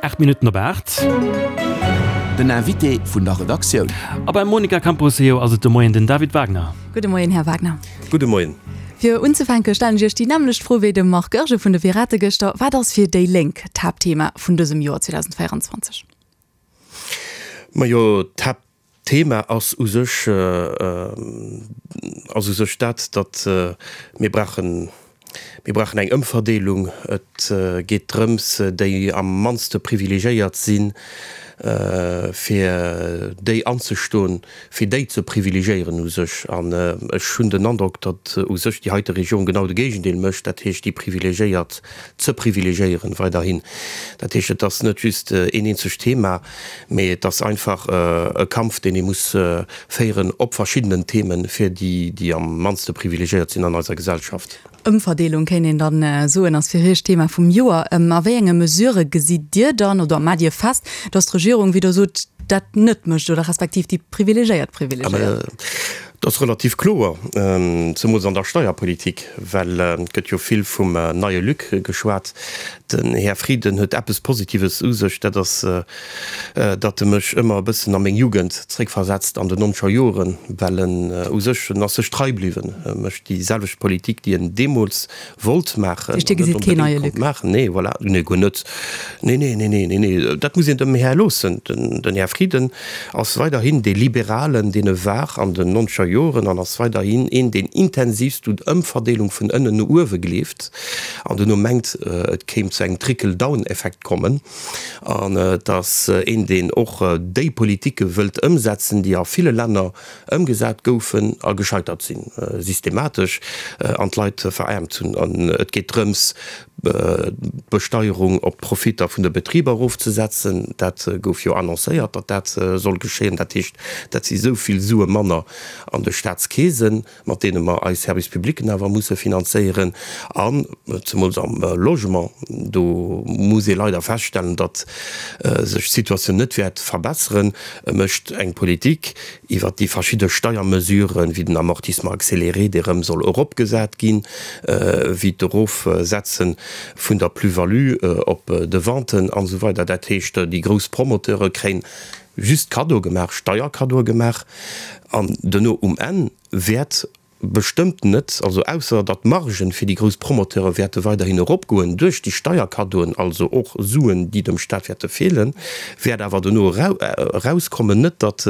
8 Minutten op 8. Den Invité vun der Redaktioun. A beim Monica Camposeo ass et de Moien den David Wagner. Gudde Moien, Här Wagner. Gudde Moien. Fir unzefänke stellen ech Iech déi nämmlecht Fro wéi dem Marc Goergen vun de Pirate gëschter, Wat ass fir déi Lénk d'Haaptthema vun dësem Joer 2024? Majo, d'Haaptthema ass u sech, ass u sech dat, datt mir brauchen, mir brauchen eng Ëmverdeelung. Et geet drëms, déi am mannste privilegiéiert sinn, fir déi anzestoen, fir déi ze privilegiéieren u sech. An ech hunn den Androck, datt u sech déi heite Regierung genau de Géigendeel mécht, dat heescht déi Privilegiéiert ze privilegiéieren weiderhin. Dat heescht, et ass net just een eenzegt Thema, mee et ass einfach e Kampf, deen ee muss féieren op verschiddenen Themen, fir déi, déi am mannste privilegiéiert sinn an eiser Gesellschaft. Ëmverdeelung, kéint een dann soen, ass fir Iech d'Thema vum Joer. A wéi enge Mesurë gesitt Dir dann oder maacht Dir fest, datt d'Regierung, wéi Der sot, dat net mécht oder respektiv déi Privilegéiert privilegéiert? Dat ass relativ kloer, zemools an der Steierpolitik, well et gëtt jo vill vum neie Luc geschwat. Den Här Frieden huet eppes Positives u sech, dat ass, datt e mech ëmmer e bëssen a meng Jugend zréckversetzt, an den nonzeger Joren, well en u sech, en ass sech trei bliwwen, e mécht déi selwecht Politik, déi en deemools wollt maachen an net onbedéngt konnt maachen. Nee, voilà, nee, guer net. Nee, nee, nee, nee, nee, nee, dat muss een dem Här loossen. Den Här Frieden ass weiderhin dee Liberalen, deen e war an den nonzeger Joren an ass weiderhin een, deen intensivst un Ëmverdeelung vun ënnen no uewe gleeft an duerno mengt, et kéim zu engem Trickle-down-Effekt kommen. An et ass een, deen och déi Politike wëllt ëmsetzen, déi a ville Länner ëmgesat goufen a gescheitert sinn, systematesch, an d'Leit veraarmt hunn. An et geet drëms, d'Besteierung op d'Profitter vun de Betriber erofzesetzen. Dat gouf jo annoncéiert, datt dat soll geschéien. Dat heescht, dat si sou vill Sue manner an de Staatskeesen, mat deene mer eis Service publicen awer musse finanzéieren. An zemools am Logement, do muss ee leider feststellen, datt sech d'Situatioun net wäert verbesseren. E mécht eng Politik, iwwert déi verschidde Steiermesuren, wéi den Amortissement accéléré, dee rëm soll eropgesat ginn, wéi d'Erofsetze vun der Plus-value op de Venten an esou weider. Dat heescht, déi grouss Promoteure kréien just Kaddoe gemaach, Steierkaddoe gemaach, an duerno um Enn wäert Bestëmmt net, also ausser datt d'Margen fir déi grouss Promoteure wäerte weiderhin eropgoen duerch déi Steierkaddoen, also och Suen, déi dem Staat wäerte feelen, wäert awer dono erauskommen, net datt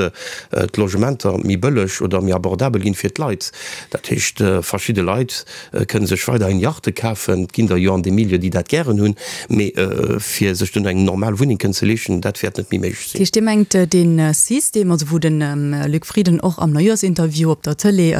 d'Logementer méi bëlleg oder méi abordabel ginn fir d'Leit. Dat heescht, verschidde Leit kënne sech weiderhin Yachte kafen, et ginn der jo an deem Milieu, déi dat gären hunn, mee fir sech duerno eng normal Wunneng kënnen ze leeschten, dat wäert net méi méiglech sinn. Dat heescht, Dir mengt dee System, also wou de Luc Frieden och am Neujahrs-Interview op der Tëlee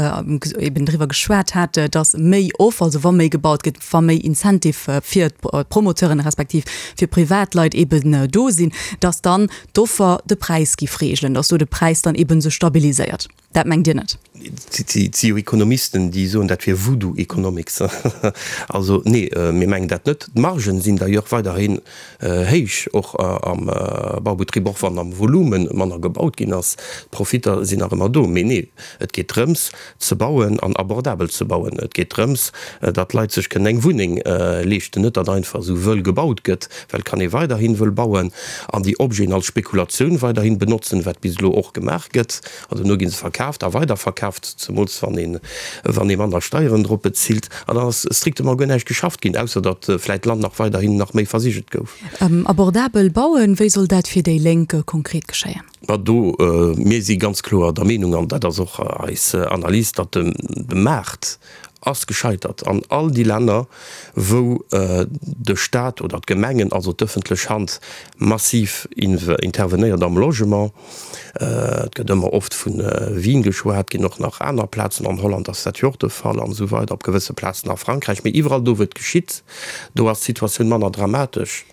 eben driwwer geschwat hat, datt méi Offer, also wa méi gebaut gëtt, wa méi Incentive fir d'Promoteuren respektiv fir Privatleit eben do sinn, datt dann d'Offer de Präis giff reegelen, datt do de Präis dann eben sech stabiliséiert. Dat mengt Dir net? Et si jo Ekonomisten, déi soen, dat wier Voodoo Economics. Also nee, mir mengen dat net. D'Margen sinn d'ailleurs weiderhin héich, och am Baubetrib, och wann am Volume manner gebaut ginn ass. D'Profitter sinn nach ëmmer do. Mee nee, et geet drëms ze bauen an abordabel ze bauen. Et geet drëms, datt d'Leit sech kënnen eng Wunneng leeschten, net datt einfach esou wëll gebaut gëtt, well et kann ee weiderhin wëll bauen an déi Objeten als Spekulatioun weiderhin benotzen, wat bis elo och gemaach gëtt. An duerno gi se verkaaft a weiderverkaaft, zemools wann een, wann ee manner Steieren drop bezilt. An dann ass strictement guer näischt geschafft ginn, ausser datt vläit d'Land nach weiderhin nach méi versigelt gouf. Abordabel bauen, wéi soll dat fir déi Lénk konkret geschéien? Ma do, mir si ganz kloer der Meenung, an dat ass och eis Analys, datt de Maart ass gescheitert an all déi Länner, wou de Staat oder d'Gemengen, also d'ëffentlech Hand, massiv intervenéiert am Logement. Et gëtt ëmmer oft vu Wien geschwat, et ginn och nach aner Plazen, an Holland ass dat jo och de Fall an esou weider, op gewësse Plazen a Frankräich. Mee iwwerall do, wou et geschitt, do ass d'Situatioun manner dramatesch.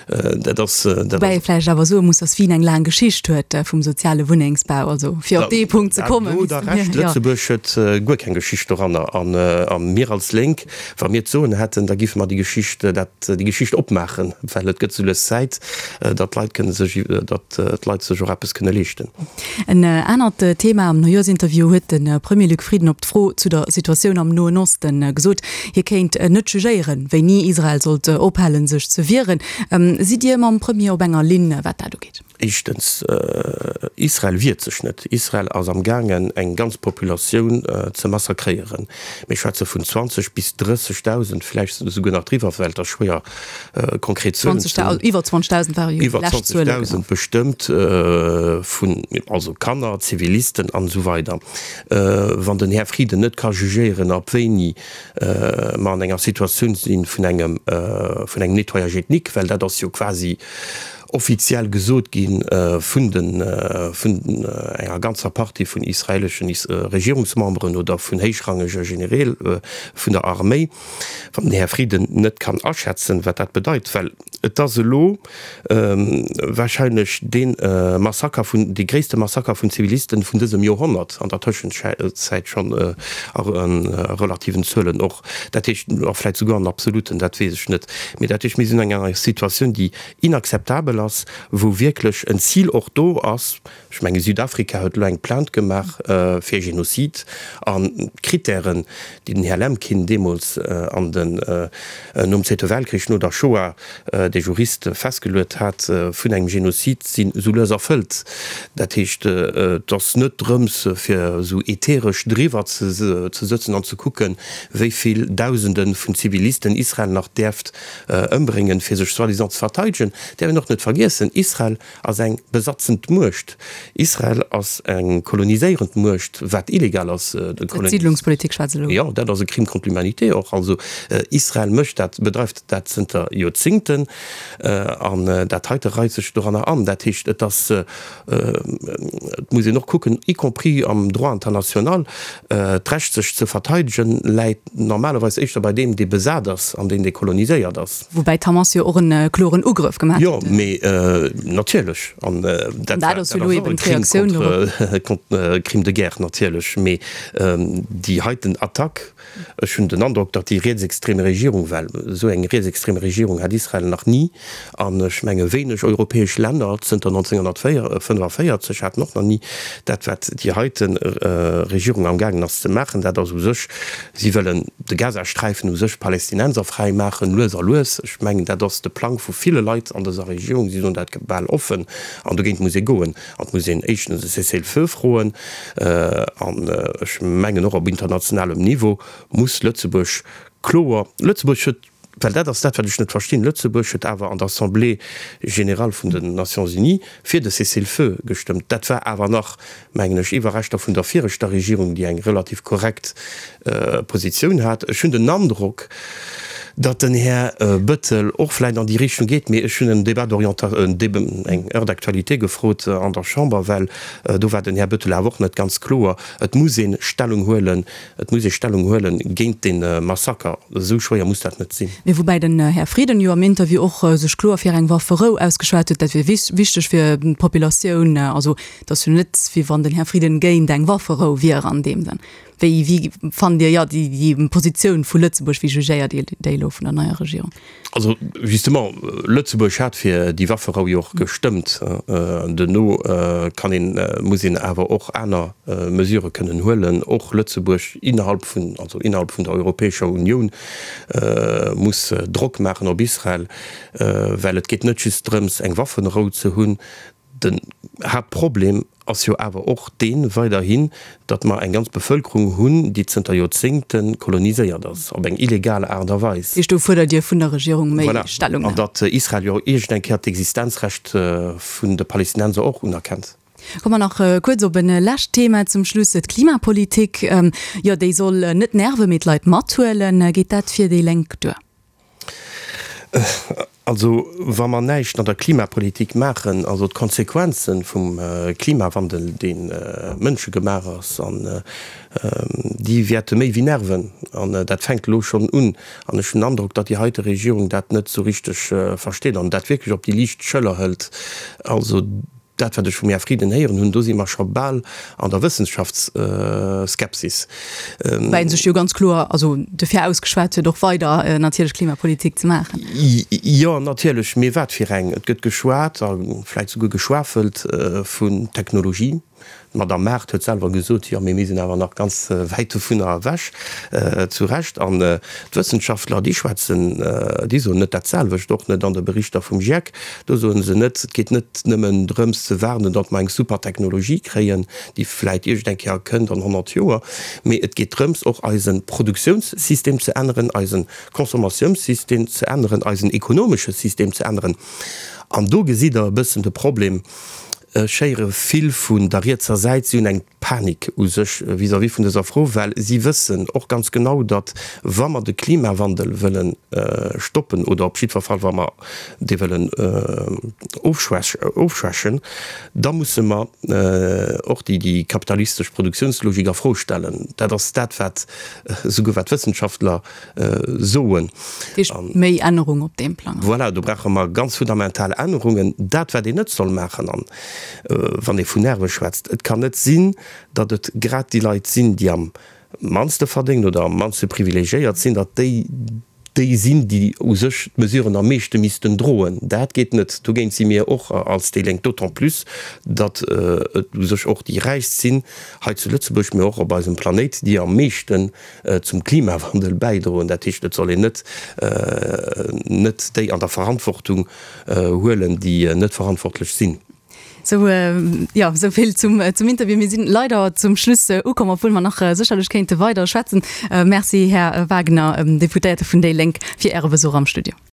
Dat ass, dat Woubäi ee ass. vläicht awer soe muss, datt Wien eng laang Geschicht huet vum soziale Wunnengsbau. Also fir op dee Punkt ze kommen, Do hutt Der Recht, Lëtzebuerg huet guer keng Geschicht doranner. An. A mir als Lénk, wa mir d'Soen hätten, da géife mer déi Geschicht, dat, déi Geschicht opmaachen, well et gëtt sou lues Zäit, datt d'Leit kënne sech, datt d'Leit sech och eppes kënne leeschten. En anert Thema am Neujooschinterview huet de Premier Luc Frieden op d'Fro zu der Situatioun am Noen Osten gesot, hie kéint net jugéieren, wéini Israel sollt ophalen, sech ze wieren. Sidd Dir mam Premier op enger Linn, wat dat ugeet? Éischtens, Israel wiert sech net. Israel ass am gaangen eng ganz Populatioun ze massakréieren. Mir schwätze vun 20 bis 30.000, vläicht esouguer nach driwwer, well et ass schwéier konkret Zuelen ze hunn. Iwwer 20.000 ware jo déi lescht Zuelen. Iwwer 20.000 bestëmmt, vun also Kanner, Zivilisten an esou weider. Wann den Här Frieden net ka jugéieren, ab wéini mer an enger Situatioun si vun engem vun engem Nettoyage ethnique, well dat ass jo quasi offiziell gesot gi vun de vun enger ganzer Partie vun israeleschen Regierungsmemberen oder vun héichrangege Genereel vun der Arméi, wann den Här Frieden net kann aschätzen, wat dat bedeit, well et ass elo wahrscheinlech dee Massaker vun, dee gréisste Massaker vun Zivilisten vun dësem Joerhonnert, an der Tëschenzäit schonn a relativen Zuelen och, dat heescht, a vläicht souguer an absoluten, dat weess ech net, mee dat heescht, mir sinn an enger Situatioun, déi inakzeptabel ass, wou wierklech en Zil och do ass, ech menge Südafrika huet elo eng Plainte gemaach fir Genozid, an d'Kritären, déi den Här Lemkin deemools an den, nom Zweete Weltkrich, no der Shoah, dee Jurist festgeluet hat, vun engem Genozid, sinn esou lues erfëllt. Dat heescht, et ass net drëms, fir esou ätheresch driwwer ze sëtzen an ze kucken, wéi vill Dausende vun Zivilisten Israel nach däerft ëmbréngen, fir sech soi-disant ze verteidegen, däerf een och net vergiessen, Israel ass eng besatzend Muecht. Israel ass eng koloniséierend Muecht, wat illegal ass. D'Siidlungspolitik schwätzt elo. Jo, dat ass e Crime contre l'humanité och. Also Israel mécht dat, bedreift dat zënter Joerzingten an dat heite reit sech doranner an. Dat heescht, et ass, et muss een och kucken, y compris am Droit international, D'Recht sech ze verteidegen läit normalerweis éischter bei deem dee besat ass an deen dee koloniséiert ass. Woubäi d'Hamas jo och en kloren Ugrëff gemaach huet. Jo, mee natierlech, an dat ass jo och e Crime contre, Crime de guerre natierlech, mee déi heiten Attack, Ech hunn den Androck, datt déi rietsextreme Regierung, well esou eng rietsextreme Regierung hat Israel nach ni, an ech menge wéineg europäesch Länner zënter 1945 haten och nach ni dat, wat déi heite Regierung amgaangen ass ze maachen, dat ass u sech, si wëllen de Gazasträifen u sech palästinenserfräi maachen, lues a lues. Ech mengen, dat ass de Plang vu ville Leit an dëser Regierung, si soen dat bal offen, an dogéint muss ee goen. An et muss een éischtens e Cessez-le-feu froen. An ech mengen och op internationalem Niveau muss Lëtzebuerg kloer, Lëtzebuerg huet, well dat ass dat wat ech net verstinn, Lëtzebuerg huet awer an der Assemblée générale vun den Nations Unies fir de Cessez-le-feu gestëmmt. Dat war awer nach, mengen ech, Iwwerreschter vun der viregter Regierung, déi eng relativ korrekt Positioun hat. Ech hunn den Androck, datt den Här Bettel och vläicht an déi Richtung geet, mee ech hunn en Débat d'orientation, eng Heure d'actualité gefrot an der Chamber, well do war den Här Bettel awer och net ganz kloer. Et muss ee Stellung huelen, et muss ee Stellung huele géint dee Massaker. Esou schwéier muss dat net sinn. Mee woubäi den Här Frieden jo am Interview och sech kloer fir eng Wafferou ausgeschwat huet, dat wier wichteg fir d'Populatioun. Also et ass jo net, wéi wann den Här Frieden géint eng Wafferou wier an deem Sënn. Wéi, wéi fannt Dir, jo, déi, déi Positioun vu Lëtzebuerg, wéi jugéiert Dir déi elo vun der neier Regierung? Also justement, Lëtzebuerg hat fir déi Wafferou jo och gestëmmt. Duerno kann een, muss een awer och aner Mesurë kënnen huelen. Och Lëtzebuerg innerhalb vun, also innerhalb vun der Europäescher Unioun muss Drock maachen op Israel, well et geet net just drëms eng Waffenrou ze hunn, Den Haaptproblem ass jo awer och deen weiderhin, datt mer eng ganz Bevölkerung hunn, déi zënter Joerzéngte koloniséiert ass, op eng illegal Aart a Weis. Heescht, do fuerdert Dir vun der Regierung méi Stellungnam? Voilà. An datt Israel jo iergend eng Kéier d'Existenzrecht vun de Palästinenser och unerkennt. Komme mer nach kuerz op e lescht Thema zum Schluss, d'Klimapolitik. Jo, déi soll net nerven, mee d'Leit mathuelen. Geet dat fir déi Lénk duer? Also, wa mer näischt an der Klimapolitik maachen, also d'Konsequenze vum Klimawandel, dee mënschegemaach ass, an déi wäerte méi wéi nerven. An dat fänkt elo schonn un. An ech hunn den Androck, datt déi heite Regierung dat net esou richteg versteet an dat wierklech op déi liicht Schëller hëlt. Also. Dat, wat ech vum Här Frieden héieren hunn, do si mer scho bal an der Wëssenschaftsskepsis. Woubäi en sech jo ganz kloer also dofir ausgeschwat huet, och weider natierlech Klimapolitik ze maachen. Jo, natierlech, mee wat fir eng? Et gëtt geschwat a vläicht souguer geschwafelt vun Technologie. D'Madame Mart huet selwer gesot, jo, mee mir sinn awer nach ganz wäit dovunner ewech. Zu Recht. An d'Wëssenschaftler, déi schwätzen, déi soen net dat selwecht, och net an de Berichter vum GIEC. Do soe se net, et geet net nëmmen drëms ze waarden, datt mer eng super Technologie kréien, déi vläit iergend eng Kéier kënnt an 100 Joer, mee et geet drëms, och eise Produktiounssystem ze änneren, eise Consommatiounsystem ze änneren, eisen ekonomesche System ze änneren. An do gesitt Der e bëssen de Problem. Ech héiere vill vun der rietser Säit, si hunn eng Panik u sech vis-à-vis vun dëser Fro, well si wëssen och ganz genau, datt wa mer de Klimawandel wëlle stoppen oder op jiddwer Fall wa mer dee wëllen ofschwächen, da musse mer och déi kapitalistesch Produktiounslogik a Fro stellen. Dat ass dat, wat esouguer wat d'Wëssenschaftler soen. Dat heescht méi Ännerung op deem Plang. Voilà, do brauche mer ganz fundamental Ännerungen. Dat, wat een net soll maachen, an wann ee vun Nerve schwätzt, et kann net sinn, datt et grad déi Leit sinn, déi am mannste verdéngen oder am mannste privilegiéiert sinn, datt déi déi sinn, déi u sech d'Mesuren am meeschte missten droen. Dat geet net. Dogéint si mir och als déi Lénk, d'autant plus, datt et u sech och déi Räichst sinn hei zu Lëtzebuerg, mee och op eisem Planéit, déi am meeschten zum Klimawandel bäidroen. Dat heescht, et soll een net net déi an der Verantwortung huelen, déi net verantwortlech sinn. Sou, jo, sou vill zum zum Interview. Mir sinn leider zum Schluss ukomm, obwuel mer nach sécherlech kéinte weider schwätzen. Merci, Här Wagner, Deputéierte vun déi Lénk, fir Äre Besuch am Studio.